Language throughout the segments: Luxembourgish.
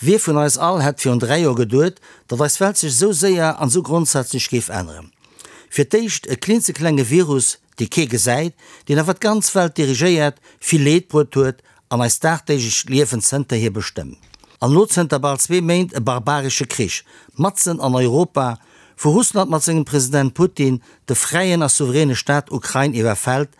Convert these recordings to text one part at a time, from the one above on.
Wie vun eis all hätt virun 3 Joer geduet, datt eis Welt sech esou séier an esou grondsätzlech géif änneren? Fir d'éischt e klinzeklenge Virus, dee kee gesäit, deen awer d'ganz Welt dirigéiert, vill Leed bruet huet an eist dagdeeglecht Liewen zënterhier bestëmmt. An elo zënter bal zwee Méint e barbaresche Krich, matzen an Europa, wou Russland mat sengem President Putin de fräien a souveräne Staat Ukrain iwwerfält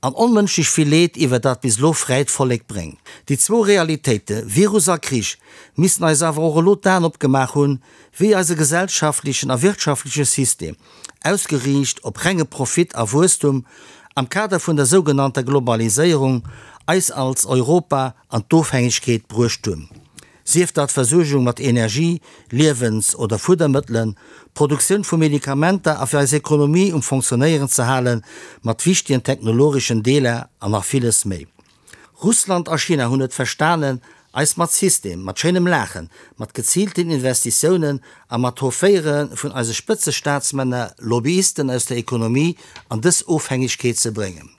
an onmënschlech vill Leed iwwer dat bis elo fräit Vollek bréngt. Déi zwou Realitéite, Virus a Krich, missten eis awer och elo d'Aen opgemaach hunn, wéi eise gesellschaftlechen a wirtschaftleche System, ausgeriicht op renge Profit a Wuesstum, am Kader vun der sougenannter Globaliséierung, eis als Europa an d'Ofhängegkeet bruecht hunn. Sief dat d'Versuergung mat Energie, Liewens oder Fuddermëttelen, d'Produktioun vu Medikamenter a fir eis Ekonomie um Fonctionnéieren ze halen, mat wichtegen technologeschen Deeler an nach villes méi. Russland a China hunn et verstanen, eis mat System, mat schéinem Laachen, mat geziilten Investitiounen a mat Hoféiere vun eise Spëtzestaatsmänner, Lobbyisten aus der Ekonomie an dës Ofhängegkeet ze bréngen.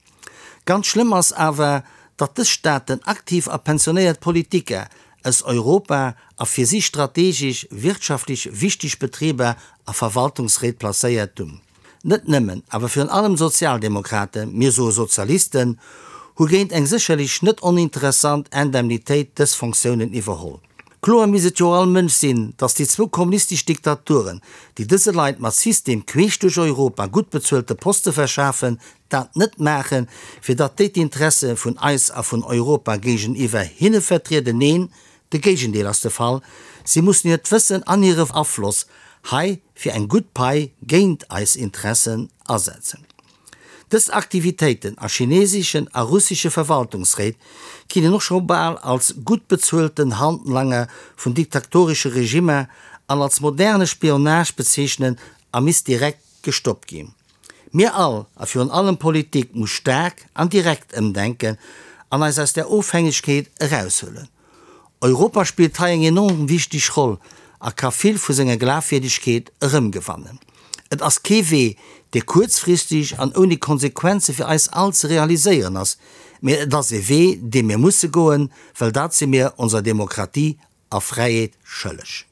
Ganz schlëmm ass awer, datt dës Staaten aktiv a pensionéiert Politiker aus Europa a fir si strategesch, wirtschaftlech wichteg Betriber a Verwaltungsréit placéiert hunn. Net nëmmen, awer virun allem d'Sozialdemokraten, mir soe Sozialisten, hu géint eng sécherlech net oninteressant Indemnitéit dës Fonctiounen iwwerholl. Kloer misst et jo all Mënsch sinn, datt déi zwou kommunistesch Diktaturen, déi dëse Leit mat System queesch duerch Europa gutt bezuelte Poste verschafen, dat net maachen, fir datt déi d'Interesse vun eis a vun Europa géigeniwwer hinne vertrieden. Neen, de Géigendeel ass de Fall, si mussen hiert Wëssen an hire Afloss hei fir eng gutt Pai géint eis Interessen asetzen. Dës Aktivitéiten a chineseschen a russesche Verwaltungsréit ginn een och scho bal als gutt bezuelten Handlanger vun diktatoresche Regimmer an als moderne Spionage bezeechnen a misst direkt gestoppt ginn. Mir all, a virun allem d'Politik, muss staark an direkt ëmdenken an eis aus där Ofhängegkeet eraushuelen. Europa spillt hei eng enorm wichteg Roll a ka vill vu senger Glafwierdegkeet erëmgewannen. Et ass kee Wee, dee kuerzfristeg an ouni Konsequenze fir eis all ze realiséieren ass, mee et ass ee Wee, dee mir musse goen, well dat si mir onser Demokratie a Fräiheet schëlleg.